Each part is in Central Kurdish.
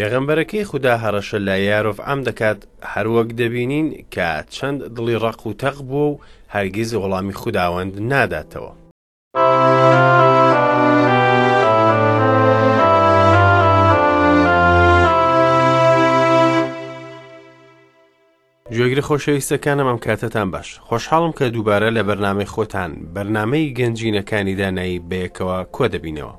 پێغەمبەرەکەی خودا هەڕەشە لە یارۆڤعام دەکات، هەروەک دەبینین کە چەند دڵی ڕەق و تەق بووە و هەرگیز وەڵامی خوداوەند ناداتەوە. گوێگرە خۆشەویستەکانم ئەم کاتەتان باش خۆشحاڵم کە دووبارە لە بەرنامەی خۆتان بەرنامەی گەنجینەکانی دانایی بەیەکەوە کۆ دەبینەوە.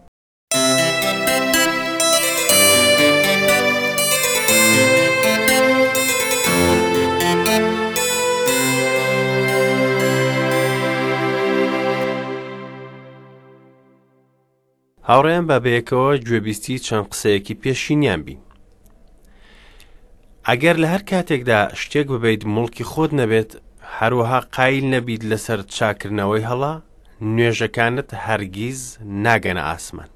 هاوڕێیان با بەیەکەوە گوێبیستی چەند قسەیەکی پێشینیان بین. ئەگەر لە هەر کاتێکدا شتێک ببیت موڵکی خۆت نەبێت، هەروەها قایل نەبیت لەسەر چاکردنەوەی هەڵە، نوێژەکانت هەرگیز ناگەنە ئاسمان.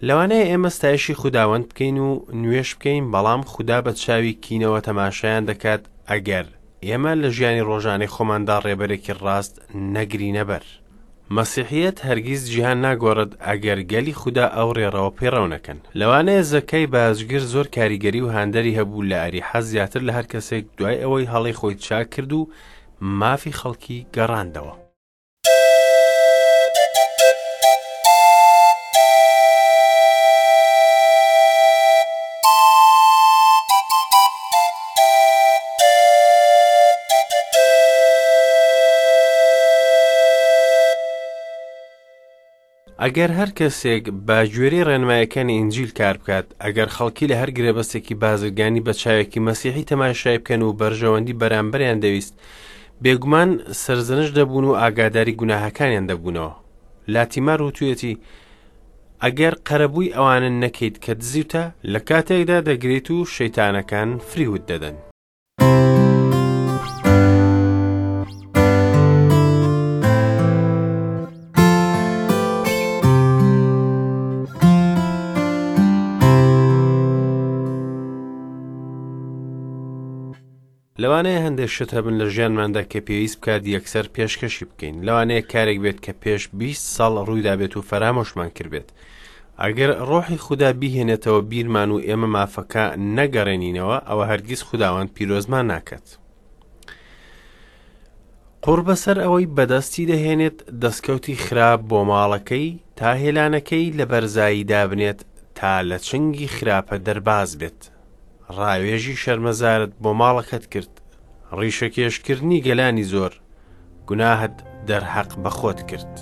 لەوانەیە ئێمە ستایشی خوداوەند بکەین و نوێژ بکەین، بەڵام خودا بە چاوی کینەوە تەماشایان دەکات ئەگەر ئێمە لە ژیانی ڕۆژانەی خۆماندا ڕێبەرێکی ڕاست نەگرینە بەر. مەسیحییەت هەرگیز جیهان ناگۆڕێت ئەگەر گەلی خودا ئەو ڕێڕەوە پەیڕەو نەکەن. لەوانەیە زەکای باجگر زۆر کاریگەری و هاندەری هەبوو لە ئەریحا زیاتر لە هەر کەسێک دوای ئەوەی هەڵەی خۆی چاک کرد و مافی خەڵکی گەڕاندەوە. ئەگەر هەر کەسێک بە گوێرەی ڕێنمایەکانی ئینجیل کار بکات، ئەگەر خەڵکی لە هەر گرێبەستێکی بازرگانی بە چاوێکی مەسیحی تەماشای بکەن و بەرژەوەندی بەرامبەریان دەویست، بێگومان سەرزەنشت دەبوون و ئاگاداری گوناهەکانیان دەبوونەوە. لاتیمار وتویەتی، ئەگەر قەرەبووی ئەوانە نەکەیت کە دزیوتە، لە کاتێکدا دەگریت و شەیتانەکان فریوت دەدەن. لەوانەیە هەندێک شت هەبن لە ژیانماندا کە پێویست بکات یەکسەر پێشکەشی بکەین لەوانەیە کارێک بێت کە پێش 20 ساڵ ڕوویدابێت و فەرامۆشمان کردبێت ئەگەر ڕۆحی خودا بیهێنێتەوە بیرمان و ئێمە مافەکە نەگەڕێنینەوە ئەوە هەرگیز خوداوەند پیرۆزمان ناکات قوڕ بەسەر ئەوەی بەدەستی دەهێنێت دەستکەوتی خراپ بۆ ماڵەکەی تا هێلانەکەی لە بەرزایی دابنێت تا لە چنگی خراپە دەرباز بێت ڕاوێژی شەرمەزارت بۆ ماڵەکەت کرد، ڕیشەکێشکردنی گەلانی زۆر، گوناهت دەرهەق بە خۆت کرد.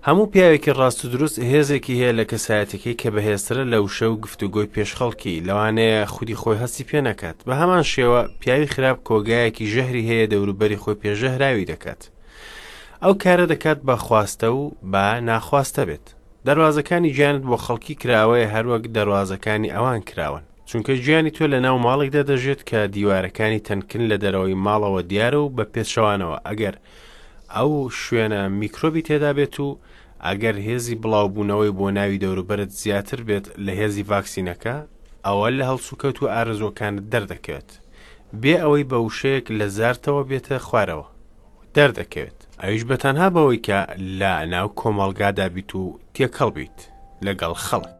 هەموو پیاوێکی ڕاست و دروست هێزێکی هەیە لە کەسایەتەکەی کە بەهێزترە لە وشە و گفتوگۆی پێش خەڵکی، لەوانەیە خودی خۆی هەستی پێ نەکات. بە هەمان شێوە پیاوی خراپ کۆگایەکی ژەهری هەیە دەوروبەری خۆی پێ ژەهراوی دەکات. ئەو کارە دەکات بە خواستە و بە ناخواستە بێت. دەروازەکانی گیانت بۆ خەڵکی کراوەیە هەروەک دەروازەکانی ئەوان کراوەن. چونکە گیانی تۆ لە ناو ماڵێکدا دەژێت کە دیوارەکانی تەنکن لە دەرەوەی ماڵەوە دیارە و بە پێچەوانەوە ئەگەر ئەو شوێنە میکرۆبی تێدا بێت و ئەگەر هێزی بڵاوبوونەوەی بۆ ناوی دەوروبەرت زیاتر بێت لە هێزی ڤاکسینەکە ئەوە لە هەڵسوکەوت و ئارەزووەکانت دەردەکەوێت بێ ئەوەی بە وشەیەک لە زارتەوە بێتە خوارەوە دەردەکەوێت ئەویش بە تەنها بەوەی کە لە ناو کۆمەڵگادا بیت و تێکەڵ بیت لەگەڵ خەڵک.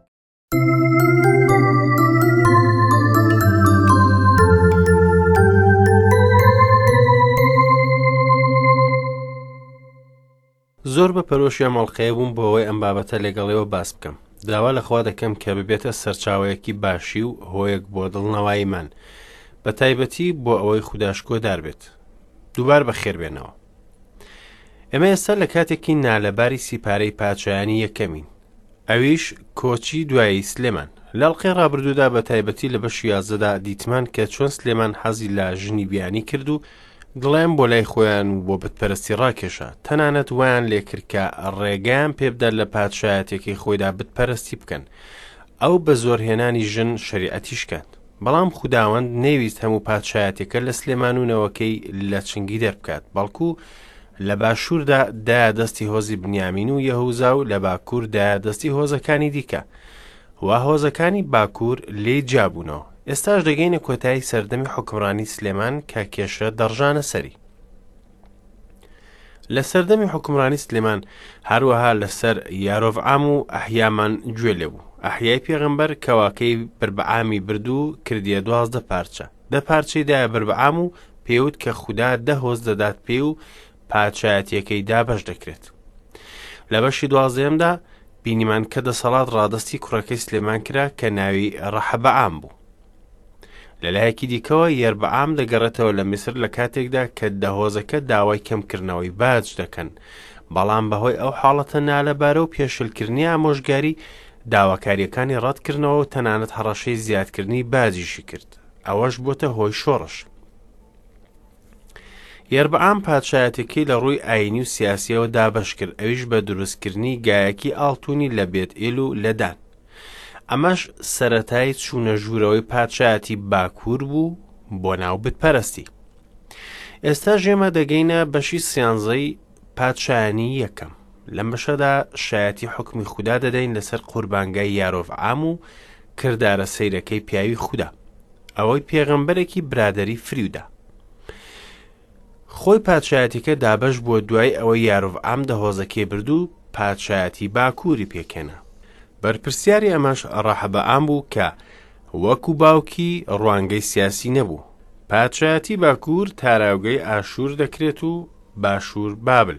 زۆر بە پەرۆشی ئەم ئەڵقەیە بووم بۆ ئەوەی ئەم بابەتە لەگەڵیەوە باس بکەم داوا لە خوا دەکەم کە ببێتە سەرچاوەیەکی باشی و هۆیەک بۆ دڵنەواییمان بە تایبەتی بۆ ئەوەی خودا شکۆدار بێت دووبار بەخێربێنەوە ئێمە ئێستا لە کاتێکی نالەباری سیپارەی پاچایانی یەکەمین ئەویش کۆچی دوایی سلێمان لە ئەڵقەی ڕابردوودا بە تایبەتی لە بەشی یازدەدا دیتمان کە چۆن سلێمان حەزی لە ژنی بیانی کرد و دڵیان بۆ لای خۆیان و بۆ بتپەرستی ڕاکێشا تەنانەت وایان لێکرد کە ڕێگەیان پێبدات لە پادشایەتەکەی خۆیدا بتپەرستی بکەن ئەو بە زۆرهێنانی ژن شەریعەتی شکاند. بەڵام خوداوەند نەیویست هەموو پادشایەتیەکە لە سلێمان و نەوەکەی لە چنگی دەربکات، بەڵکو لە باشووردا دایە دەستی هۆزی بنیامین و یەهوزا و لە باکوور دایە دەستی هۆزەکانی دیکە و هۆزەکانی باکوور لێی جیابوونەوە. ئێستاش دەگەینە کۆتایی سەردەمی حوکمڕانی سلێمان کە کێشە دەڕژانە سەری. لە سەردەمی حوکمڕانی سلێمان هەروەها لەسەر یارۆڤعام و ئەحیامان گوێ لێ بوو. ئەحیای پێغەمبەر کەواکەی بربعامی برد و کردیە 12 پارچە. دە پارچەی دایە بربعام و پێوت کە خودا دە هۆز دەدات پێی و پادشایەتیەکەی دابەش دەکرێت. لە بەشی دوازدەیەمدا بینیمان کە دەسەڵات ڕادەستی کوڕەکەی سلێمان کرا کە ناوی ڕەحەبەعام بوو. لە لایەکی دیکەوە یەربعام دەگەڕێتەوە لە میسر لە کاتێکدا کە دە هۆزەکە داوای کەمکردنەوەی باج دەکەن، بەڵام بەهۆی ئەو حاڵەتە نالەبارە و پێشلکردنی ئامۆژگاری داواکاریەکانی ڕەتکردنەوە و تەنانەت هەڕەشەی زیادکردنی باجیشی کرد، ئەوەش بۆتە هۆی شۆڕش. یەربعام پادشایەتەکەی لە ڕووی ئاینی و سیاسیەوە دابەش کرد، ئەویش بە دروستکردنی گایەکی ئاڵتونی لە بێت ئێل و لە دان. ئەمەش سەرەتای چوونە ژوورەوەی پادشایەتی باکوور بوو بۆ ناو بتپەرستی. ئێستاش ئێمە دەگەینە بەشی سیانزەی پادشایانی یەکەم. لەم بەشەدا شایەتی حوکمی خودا دەدەین لەسەر قوربانگای یارۆڤعام و کردارە سەیرەکەی پیاوی خودا. ئەوەی پێغەمبەرێکی برادەری فریودا. خۆی پادشایەتیەکە دابەش بووە دوای ئەوەی یارۆڤعام دە هۆزەکەی برد و پادشایەتی باکووری پێکهێنا. بەرپرسیاری ئەمەش ڕەحەبەعام بوو کە وەکو باوکی ڕوانگەی سیاسی نەبوو. پادشایەتی باکوور تاراوگەی ئاشوور دەکرێت و باشوور بابل.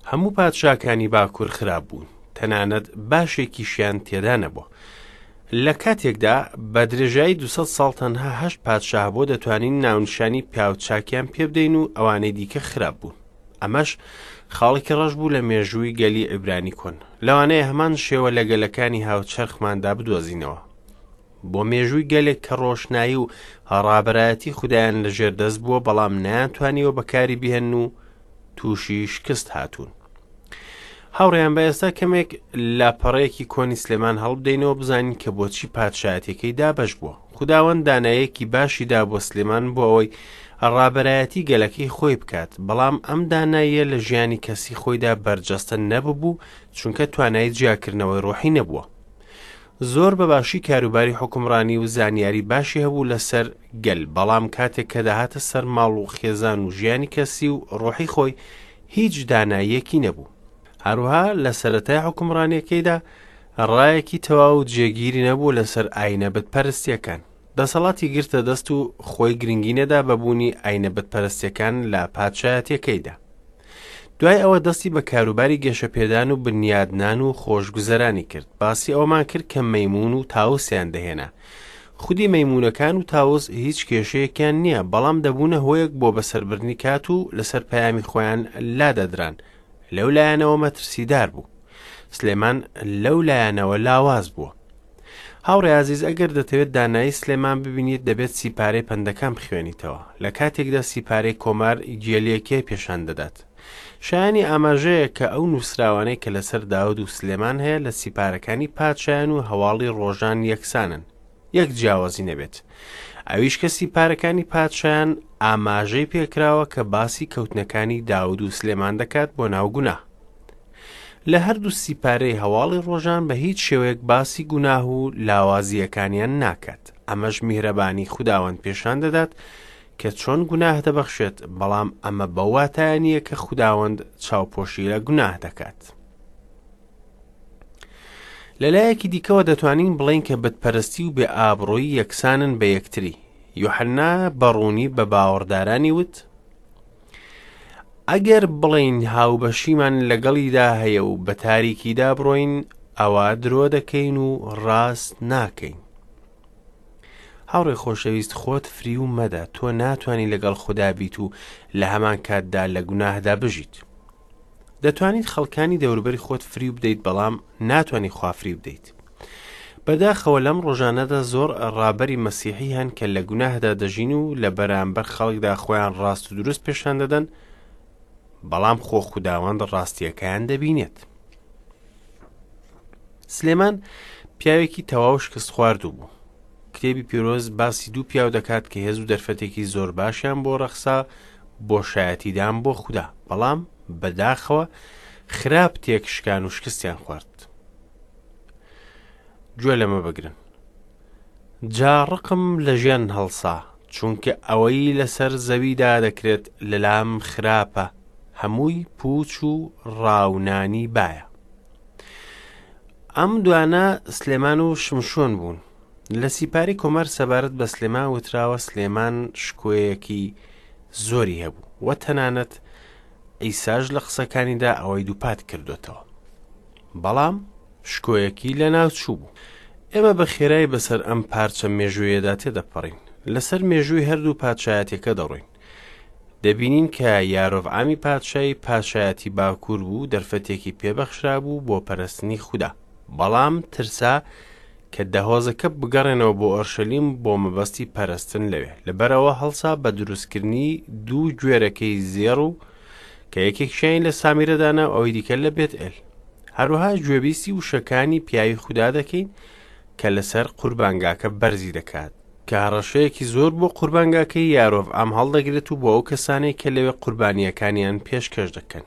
هەموو پادشاکانی باکوور خراپ بوون، تەنانەت باشێکیشیان تێدا نەبووە. لە کاتێکدا بە درێژایی 200 ساڵ تەنها هەشت پادشا هەبووە دەتوانین ناونیشانی پیاوچاکیان پێبدەین و ئەوانەی دیکە خراپ بوون. ئەمەش خاڵێکی ڕەش بوو لە مێژووی گەلی عیبرانی کۆن. لەوانەیە هەمان شێوە لە گەلەکانی هاوچەرخماندا بدۆزینەوە. بۆ مێژووی گەلێک کە ڕۆشنایی و ڕابەرایەتی خودایان لە ژێر دەست بووە بەڵام نەیانتوانیوە بەکاری بهێنن و تووشی شکست هاتوون. هاوڕێیان بە ئێستا کەمێک لاپەڕەیەکی کۆنی سلێمان هەڵبدەینەوە بزانین کە بۆچی پادشایەتەکەی دابەش بووە. خوداوەند دانایەکی باشی دا بۆ سلێمان بۆ ئەوەی ڕابەرایەتی گەلەکەی خۆی بکات، بەڵام ئەم داناییە لە ژیانی کەسی خۆیدا بەرجەستە نەببوو چونکە توانای جیاکردنەوەی ڕۆحی نەبووە. زۆر بە باشی کاروباری حوکمڕانی و زانیاری باشی هەبوو لەسەر گەل، بەڵام کاتێک کە دەهاتە سەر ماڵ و خێزان و ژیانی کەسی و ڕۆحی خۆی هیچ داناییەکی نەبوو. هەروەها لە سەرەتای حوکمڕانیەکەیدا ڕایەکی تەواو و جێگیری نەبوو لەسەر ئاینە بتپەرستیەکان. دەسەڵاتی گرتە دەست و خۆی گرنگی نەدا بە بوونی ئاینە بتپەرستیەکان لە پادشایەتیەکەیدا. دوای ئەوە دەستی بە کاروباری گەشەپێدان و بنیادنان و خۆشگوزەرانی کرد. باسی ئەوەمان کرد کە مەیموون و تاوسیان دەهێنا. خودی مەیموونەکان و تاوس هیچ کێشەیەکیان نییە، بەڵام دەبوونە هۆیەک بۆ بەسەربردنی کات و لەسەر پەیامی خۆیان لادەدران. لەو لایەنەوە مەترسیدار بوو. سلێمان لەو لایەنەوە لاواز بووە. هاوڕێ ئازیز ئەگەر دەتەوێت دانایی سلێمان ببینیت دەبێت سیپارەی پەندەکان بخوێنیتەوە لە کاتێکدا سیپارەی کۆمار گێلیەکەی پێشان دەدات شایانی ئاماژەیە کە ئەو نووسراوانەی کە لەسەر داود و سلێمان هەیە لە سیپارەکانی پادشایان و هەواڵی ڕۆژان یەکسانن یەک جیاوازی نەبێت ئەویش کە سیپارەکانی پادشایان ئاماژەی پێکراوە کە باسی کەوتنەکانی داود و سلێمان دەکات بۆ ناو گوناه لە هەردوو سیپارەی هەواڵی ڕۆژان بە هیچ شێوەیەک باسی گوناه و لاوازییەکانیان ناکات، ئەمەش میهرەبانی خوداوەند پێشان دەدات کە چۆن گوناه دەبەخشێت، بەڵام ئەمە بەو واتایە نییە کە خوداوەند چاوپۆشی لە گوناه دەکات. لە لایەکی دیکەوە دەتوانین بڵێین کە بتپەرستی و بێ ئابڕوویی یەکسانن بە یەکتری. یوحەنا بە ڕوونی بە باوەڕدارانی وت، ئەگەر بڵێین هاوبەشیمان لەگەڵیدا هەیە و بە تاریکیدا بڕۆین، ئەوا درۆ دەکەین و ڕاست ناکەین. هاوڕێ خۆشەویست خۆت فریو مەدە، تۆ ناتوانی لەگەڵ خودا بیت و لە هەمان کاتدا لە گوناهدا بژیت. دەتوانیت خەڵکانی دەوروبەری خۆت فریو بدەیت بەڵام ناتوانی خوا فریو بدەیت. بەداخەوە لەم ڕۆژانەدا زۆر ڕابەری مەسیحی هەن کە لە گوناهدا دەژین و لە بەرامبەر خەڵکدا خۆیان ڕاست و دروست پێشان دەدەن بەڵام خۆ خوداوەند ڕاستیەکەیان دەبینێت. سلێمان پیاوێکی تەواو شکست خواردوو بوو. کتێبی پیرۆز باسی دوو پیاو دەکات کە هێز و دەرفەتێکی زۆر باشیان بۆ ڕەخسا بۆ شایەتیدان بۆ خودا، بەڵام بەداخەوە خراپ تێکشکان و شکستیان خوارد. گوێ لەمە بگرن. جا ڕقم لە ژیان هەڵسا، چونکە ئەوەی لەسەر زەویدا دەکرێت لەلام خراپە، هەمووی پووچ و ڕاونانی بایە. ئەم دوانە سلێمان و شمشۆن بوون. لە سیپاری کۆمار سەبارەت بە سلێمان وتراوە سلێمان شکۆیەکی زۆری هەبوو و تەنانەت عیساش لە قسەکانیدا ئەوەی دووپات کردوێتەوە. بەڵام شکۆیەکی لەناوچوو بوو. ئێمە بە خێرای بەسەر ئەم پارچە مێژوویەدا تێدەپەڕین. لەسەر مێژووی هەردوو پادشایەتیەکە دەڕۆین. دەبینین کە یارۆڤعامی پادشای پادشایەتی باکوور بوو دەرفەتێکی پێبەخشرابوو بۆ پەرستنی خودا. بەڵام ترسا کە دەهۆزەکە بگەڕێنەوە بۆ ئۆرشەلیم بۆ مەبەستی پەرستن لەوێ. لەبەرئەوە هەڵسا بە دروستکردنی دوو گوێرەکەی زێڕ و کە یەکێکیان لە سامیرە دانا و ئەوی دیکە لە بێتئێل. هەروەها گوێبیستی وشەکانی پیاوی خودا دەکەین کە لەسەر قوربانگاکە بەرزی دەکات، کە هەڕەشەیەکی زۆر بۆ قوربانگاکەی یارۆڤعام هەڵدەگرێت و بۆ ئەو کەسانەی کە لەوێ قوربانییەکانیان پێشکەش دەکەن.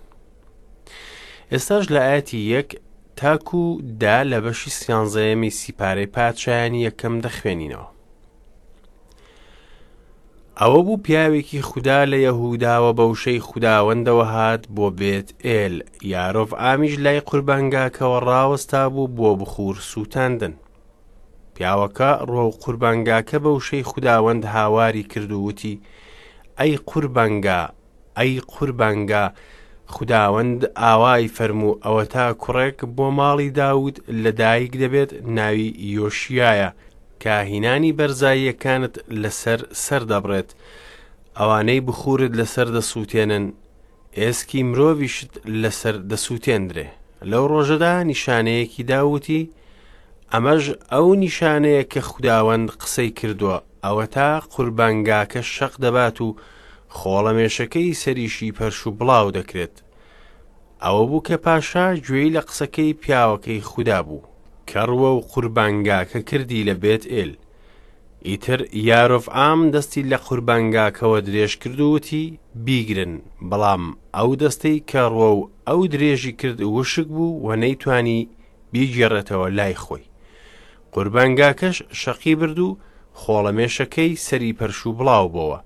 ئێستاش لە ئاەتی یەک تاکو دا لە بەشی سیانزەیەمی سیپارەی پادشایانی یەکەم دەخوێنینەوە. ئەوە بوو پیاوێکی خودا لە یەهوداوە بە وشەی خوداوەندەوە هات بۆ بێت ئێل، یارۆڤعامیش لای قوربانگاکەوە ڕاوەستا بوو بۆ بخوور سووتاندن. پیاوەکە ڕوەو قوربانگاکە بە وشەی خوداوەند هاواری کرد و وتی، ئەی قوربانگا، ئەی قوربانگا، خوداوەند ئاوای فەرموو، ئەوەتا کوڕێک بۆ ماڵی داود لەدایک دەبێت ناوی یۆشیایە، کاهینانی بەرزاییەکانت لەسەر سەر دەبڕێت، ئەوانەی بخوورت لەسەر دەسووتێنن، ئێسکی مرۆڤیشت لەسەر دەسووتێندرێ. لەو ڕۆژەدا نیشانەیەکی دا و وتی، ئەمەش ئەو نیشانەیە کە خوداوەند قسەی کردووە، ئەوەتا قوربانگاکە شەق دەبات و خۆڵەمێشەکەی سەریشی پەرش و بڵاو دەکرێت. ئەوە بوو کە پاشا گوێی لە قسەکەی پیاوەکەی خودا بوو، کە ڕووەو قوربانگاکە کردی لە بێتئێل. ئیتر یارۆڤعام دەستی لە قوربانگاکەوە درێژ کرد و وتی، بیگرن! بەڵام ئەو دەستەی کە ڕووەو ئەو درێژی کرد وشک بوو و نەیتوانی بیگێڕێتەوە لای خۆی. قوربانگاکەش شەقی برد و خۆڵەمێشەکەی سەری پەرش و بڵاو بۆوە،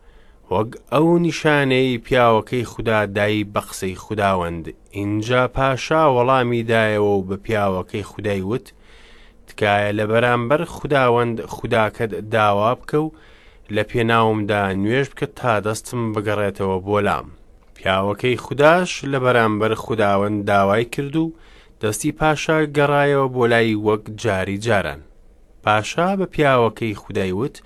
وەک ئەو نیشانەیەی پیاوەکەی خودا دای بە قسەی خوداوەند. ئینجا پاشا وەڵامی دایەوە و بە پیاوەکەی خودای وت، تکایە لە بەرامبەر خوداوەند خوداکەت داوا بکە و لە پێناومدا نوێژ بکە تا دەستم بگەڕێتەوە بۆ لام. پیاوەکەی خوداش لە بەرامبەر خوداوەند داوای کرد و دەستی پاشا گەڕایەوە بۆ لای وەک جاری جاران. پاشا بە پیاوەکەی خودای وت،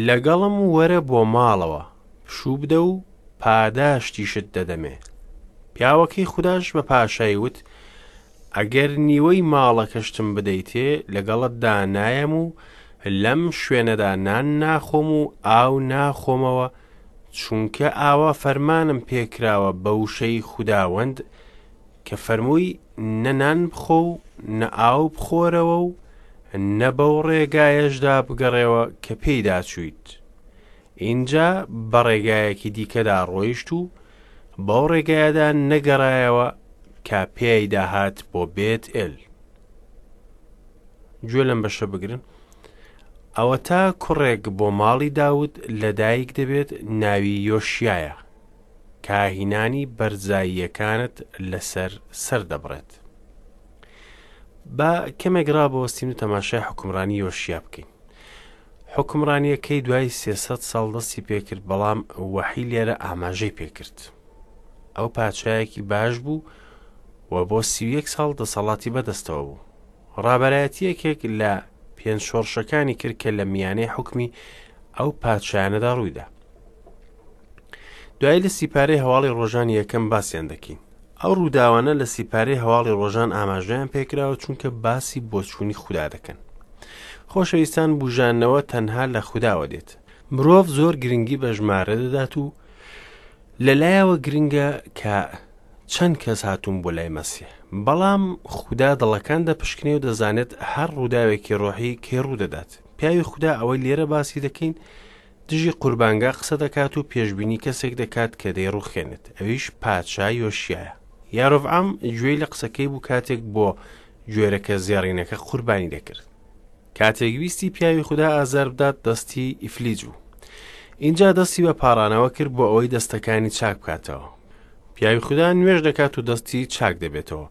لەگەڵم وەرە بۆ ماڵەوە، پشوو بدە و پاداشتیشت دەدەمێ. پیاوەکەی خوداش بە پاشای وت، ئەگەر نیوەی ماڵەکەشتم بدەیتێ، لەگەڵتدا نایەم و لەم شوێنەدا نان ناخۆم و ئاو ناخۆمەوە، چونکە ئاوا فەرمانم پێکراوە بە وشەی خوداوەند کە فەرمووی نە نان بخۆ و نە ئاو بخۆرەوە و نە بەو ڕێگایەشدا بگەڕێوە کە پێیدا چوویت. ئینجا بە ڕێگایەکی دیکەدا ڕۆیشت و بەو ڕێگایەدا نەگەڕایەوە کە پێیدا هات بۆ بێت ئێل. گوێ لەم بەشە بگرن. ئەوەتا کوڕێک بۆ ماڵی داود لەدایک دەبێت ناوی یۆشیایە. کاهینانی بەرزاییەکانت لەسەر سەر دەبڕێت. با کەمێک ڕابوەستین و تەماشای حوکمڕانی یۆشیا بکەین. حوکمڕانیەکەی دوای 300 ساڵ دەستی پێکرد بەڵام وەحی لێرە ئاماژەی پێکرد. ئەو پادشایەکی باش بوو و بۆ 31 ساڵ دەسەڵاتی بەدەستەوە بوو. ڕابەرایەتیەکێک لە پێنج شۆڕشەکانی کرد کە لە میانەی حوکمی ئەو پادشایانەدا ڕوویدا. دوایی لە سیپارەی هەواڵی ڕۆژانی یەکەم باسیان دەکەین. ئەو ڕووداوانە لە سیپارەی هەواڵی ڕۆژان ئاماژەیان پێکراوە چونکە باسی بۆچوونی خودا دەکەن. خۆشەویستان بوژانەوە تەنها لە خوداوە دێت. مرۆڤ زۆر گرنگی بە ژمارە دەدات و لەلایەوە گرنگە کە چەند کەس هاتوون بۆ لای مەسیح. بەڵام خودا دڵەکان دەپشکنێ و دەزانێت هەر ڕووداوێکی ڕۆحی کەی ڕوودەدات. پیاوی خودا ئەوەی لێرە باسی دەکەین دژی قوربانگا قسە دەکات و پێشبینی کەسێک دەکات کە دەیڕوخێنێت، ئەویش پادشا یۆشیایە. یارۆڤعام گوێی لە قسەکەی بوو کاتێک بۆ گوێرەکە زێڕینەکە قوربانی دەکرد. کاتێک ویستی پیاوی خودا ئازار بدات دەستی ئیفلیج بوو. ئینجا دەستی بە پاڕانەوە کرد بۆ ئەوەی دەستەکانی چاک بکاتەوە. پیاوی خودا نوێژ دەکات و دەستی چاک دەبێتەوە.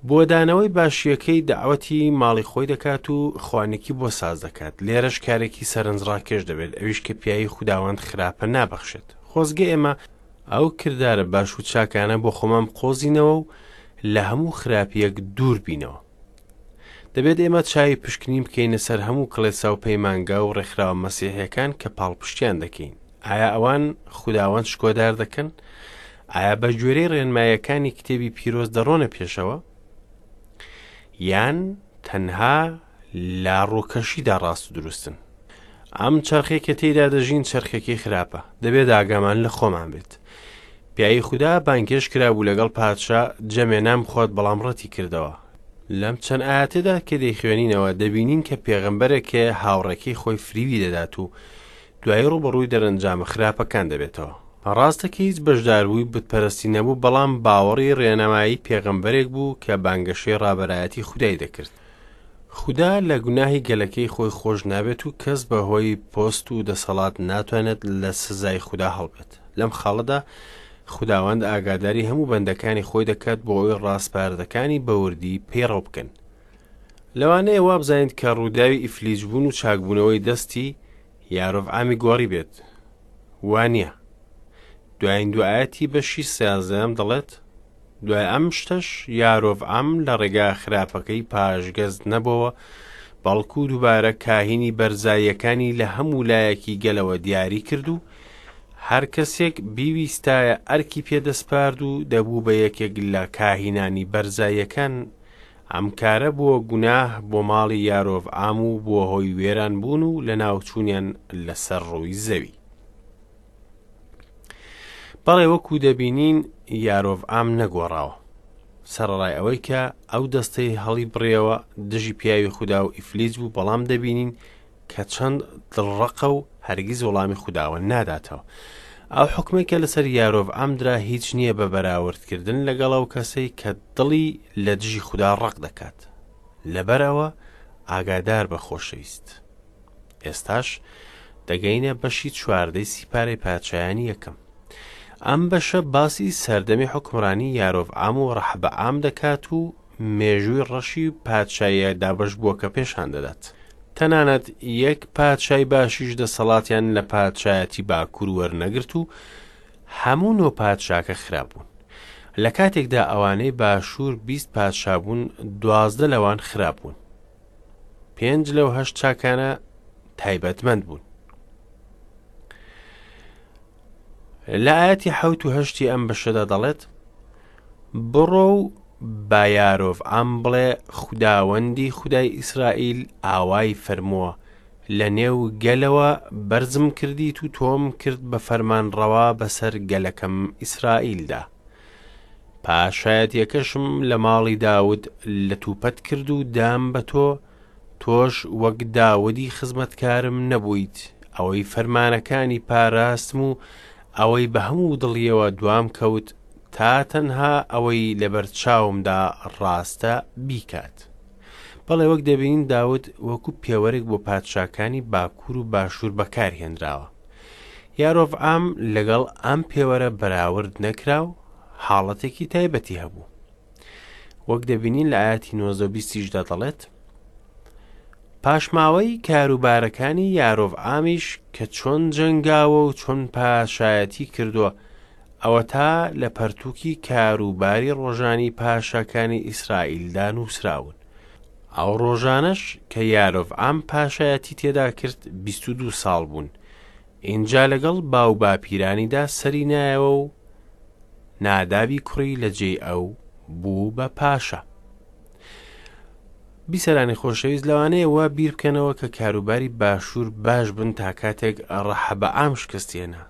بۆ دانەوەی باشییەکەی دەعوەتی ماڵی خۆی دەکات و خوانێکی بۆ ساز دەکات، لێرەش کارێکی سەرنجڕاکێش دەبێت ئەویش کە پیاوی خوداوەند خراپە نابەخشێت. خۆزگە ئێمە ئەو کردارە باش و چاکانە بۆ خۆمان بقۆزینەوە و لە هەموو خراپییەک دوور بینەوە. دەبێت ئێمە چاوی پشکنین بکەینە سەر هەموو کڵێسا و پەیمانگا و ڕێکخراوە مەسیحیەکان کە پاڵپشتیان دەکەین. ئایا ئەوان خوداوەند شکۆدار دەکەن؟ ئایا بە گوێرەی ڕێنمایەکانی کتێبی پیرۆز دەڕۆنە پێشەوە؟ یان تەنها لە ڕووکەشیدا ڕاست و دروستن؟ ئەم چەرخێک کە تێیدا دەژین چەرخێکی خراپە، دەبێت ئاگامان لە خۆمان بێت. پیاوی خودا بانگهێشت کرابوو لەگەڵ پادشا جەمێ نان بخوات بەڵام ڕەتی کردەوە. لەم چەند ئایەتەدا کە دەیخوێنینەوە دەبینین کە پێغەمبەرێک هەیە هاوڕێکەی خۆی فریوی دەدات و دوایی ڕووبەڕووی دەرەنجامە خراپەکان دەبێتەوە. ڕاستە کە هیچ بەشداربووی بتپەرستی نەبوو، بەڵام باوەڕی ڕێنمایی پێغەمبەرێک بوو کە بانگەشەی ڕابەرایەتی خودای دەکرد. خودا لە گوناهی گەلەکەی خۆی خۆش نابێت و کەس بە هۆی پۆست و دەسەڵات ناتوانێت لە سزای خودا هەڵبێت. لەم خاڵەدا خوداوەند ئاگاداری هەموو بەندەکانی خۆی دەکات بۆ ئەوەی ڕاسپاردەکانی بە وردی پەیڕەو بکەن. لەوانەیە وابزانیت کە ڕووداوی ئیفلیجبوون و چاکبوونەوەی دەستی یارۆڤعامی گۆڕی بێت. وا نییە. دوایین دوو ئایەتی بەشی سیازدەیەم دەڵێت، دوای ئەم شتەش یارۆڤعام لە ڕێگا خراپەکەی پاشگەز نەبۆوە، بەڵکو دووبارە کاهینی بەرزاییەکانی لە هەموو لایەکی گەلەوە دیاری کرد و هەر کەسێک بیویستایە ئەرکی پێدەسپارد و دەبوو بە یەکێک لە کاهینانی بەرزاییەکان، ئەم کارە بووە گوناه بۆ ماڵی یارۆڤعام و بووە هۆی وێرانبوون و لەناوچوونیان لەسەر ڕووی زەوی. بەڵێ وەکو دەبینین یارۆڤعام نەگۆڕاوە. سەرەڕای ئەوەی کە ئەو دەستەی هەڵی بڕیەوە دژی پیاوی خودا و ئیفلیج بوو بەڵام دەبینین کە چەند دڵڕەقە و هەرگیز وەڵامی خوداوە ناداتەوە. ئەو حوکمەی کە لەسەر یارۆڤعام درا هیچ نییە بە بەراوردکردن لەگەڵ ئەو کەسەی کە دڵی لە دژی خودا ڕەق دەکات. لەبەر ئەوە ئاگادار بە خۆشەویست. ئێستاش دەگەینە بەشی چواردەی سیپارەی پادشایانی یەکەم. ئەم بەشە باسی سەردەمی حوکمڕانی یارۆڤعام و ڕەحبەعام دەکات و مێژووی ڕەشی پادشاییە دابەشبووەکە پێشان دەدات. تەنانەت یەک پادشای باشیش دەسەڵاتیان لە پادشایەتی باکوور وەرنەگرت و هەموو نۆ پادشاکە خراپ بوون. لە کاتێکدا ئەوانەی باشوور 20 پادشا بوون، 12 لەوان خراپ بوون. پێنج لەو هەشت چاکانە تایبەتمەند بوون. لە ئاەتی حەوت و هەشتی ئەم بەشەدا دەڵێت بڕۆ و با یارۆڤعام بڵێ خوداوەندی خودای ئیسرائیل ئاوای فەرمووە لە نێو گەلەوە بەرزم کردیت و تۆم کرد بە فەرمانڕەوا بەسەر گەلەکەم ئیسرائیلدا پاشایەتیەکەشم لە ماڵی داود لەتوپەت کرد و دام بە تۆ تۆش وەک داودی خزمەتکارم نەبوویت، ئەوەی فەرمانەکانی پاراستم و ئەوەی بە هەموو دڵیەوە دوام کەوت، تا تەنها ئەوەی لەبەر چاومدا ڕاستە بیکات. بەڵێ وەک دەبینین داود وەکو پێوەرێک بۆ پادشاکانی باکوور و باشوور بەکارهێنراوە. یارۆڤعام لەگەڵ ئەم پێوەرە بەراورد نەکرا و حاڵەتێکی تایبەتی هەبوو. وەک دەبینین لە ئاەتی 19 بیستیشدا دەڵێت پاشماوەی کاروبارەکانی یارۆڤ ئامیش کە چۆن جەنگاوە و چۆن پاشایەتی کردووە ئەوەتا لە پەرتووکی کاروباری ڕۆژانی پاشاکانی ئیسرائیلدا نووسراون ئەو ڕۆژانەش کە یارۆڤعام پاشایەتی تێدا کرد 22 ساڵ بوون ئینجا لەگەڵ باوباپیرانیدا سەری نایەوە و نادابی کوڕی لە جێی ئەو بوو بە پاشا. بیسەرانی خۆشەویست لەوانەیە وا بیر بکەنەوە کە کاروباری باشوور باش بن تا کاتێک ڕەحەبەعام شکستێنا.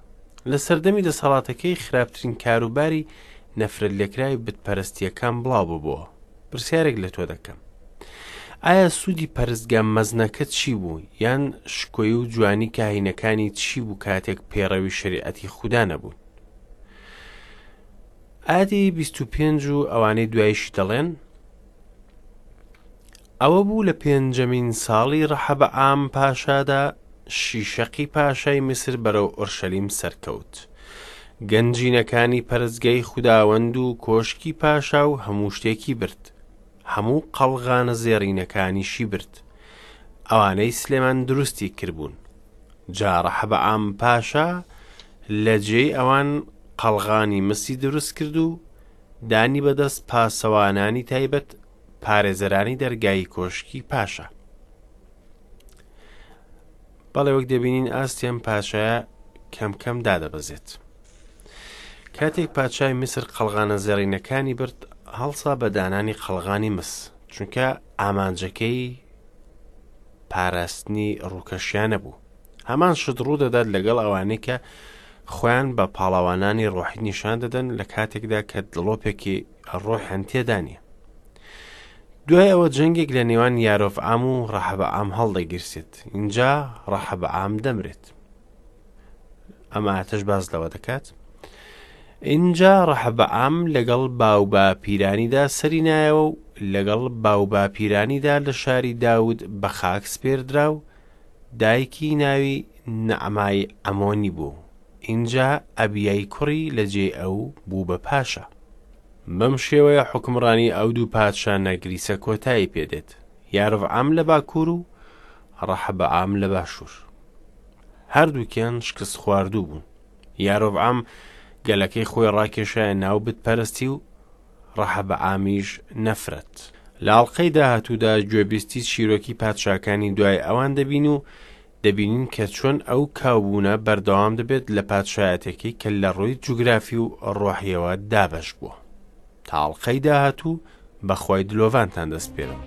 لە سەردەمی دەسەڵاتەکەی خراپترین کاروباری نەفرەت لێکراوی بتپەرستیەکان بڵاو ببۆوە. پرسیارێک لە تۆ دەکەم. ئایا سوودی پەرستگا مەزنەکە چی بوو، یان شکۆی و جوانی کاهینەکانی چی بوو کاتێک پەیڕەوی شەریعەتی خودا نەبوون؟ ئایەتی 25 و ئەوانەی دوایشی دەڵێن، ئەوە بوو لە پێنجەمین ساڵی ڕەحەبەعام پاشادا شیشەقی پاشای میسر بەرەو ئۆرشەلیم سەرکەوت. گەنجینەکانی پەرستگای خوداوەند و کۆشکی پاشا و هەموو شتێکی برد. هەموو قەڵغانە زێڕینەکانیشی برد، ئەوانەی سلێمان دروستی کردبوون. جا ڕەحەبەعام پاشا لە جێی ئەوان قەڵغانی مسی دروست کرد و دانی بەدەست پاسەوانانی تایبەت پارێزەرانی دەرگای کۆشکی پاشا. بەڵێ وەک دەبینین ئاستی ئەم پاشایە کەم کەم دادەبەزێت. کاتێک پادشای میسر قەڵغانە زێڕینەکانی برد هەڵسا بە دانانی قەڵغانی مس چونکە ئامانجەکەی پاراستنی ڕووکەشیانە بوو هەمان شت ڕوو دەدات لەگەڵ ئەوانەی کە خۆیان بە پاڵەوانانی ڕۆحی نیشان دەدەن لە کاتێکدا کە دڵۆپێکی ڕۆحیان تێدا نییە دوای ئەوە جەنگێک لە نێوان یارۆڤعام و ڕەحەبەعام هەڵدەگیرسێت اینجا ڕەحەبەعام دەمرێت ئەم ئاتەش باس لەوە دەکات ئینجا ڕەحەبەعام لەگەڵ باوباپیرانیدا سەری نایەوە و لەگەڵ باوباپیرانیدا لە شاری داود بە خاک سپێردرا و دایکی ناوی نەعمای عەمۆنی بوو ئینجا ئەبیای کوڕی لە جێی ئەو بوو بە پاشا. بەم شێوەیە حوکمڕانی ئەو دوو پادشا نەگریسە کۆتایی پێ دێت، یارۆڤعام لە باکوور و ڕەحەبەعام لە باشوور. هەردووکیان شکستخواردوو بوون. یارۆڤعام گەلەکەی خۆی ڕاکێشایە ناو بتپەرستی و ڕەحەبەعامیش نەفرەت. لە ئەڵقەی داهاتوودا گوێبیستی چیرۆکی پادشاکانی دوای ئەوان دەبین و دەبینین کە چۆن ئەو کاوبوونە بەردەوام دەبێت لە پادشایەتەکەی کە لە ڕووی جوگرافی و ڕۆحیەوە دابەش بووە. تا ئەڵقەی داهاتوو بە خوای دلۆڤانتان دەسپێرم.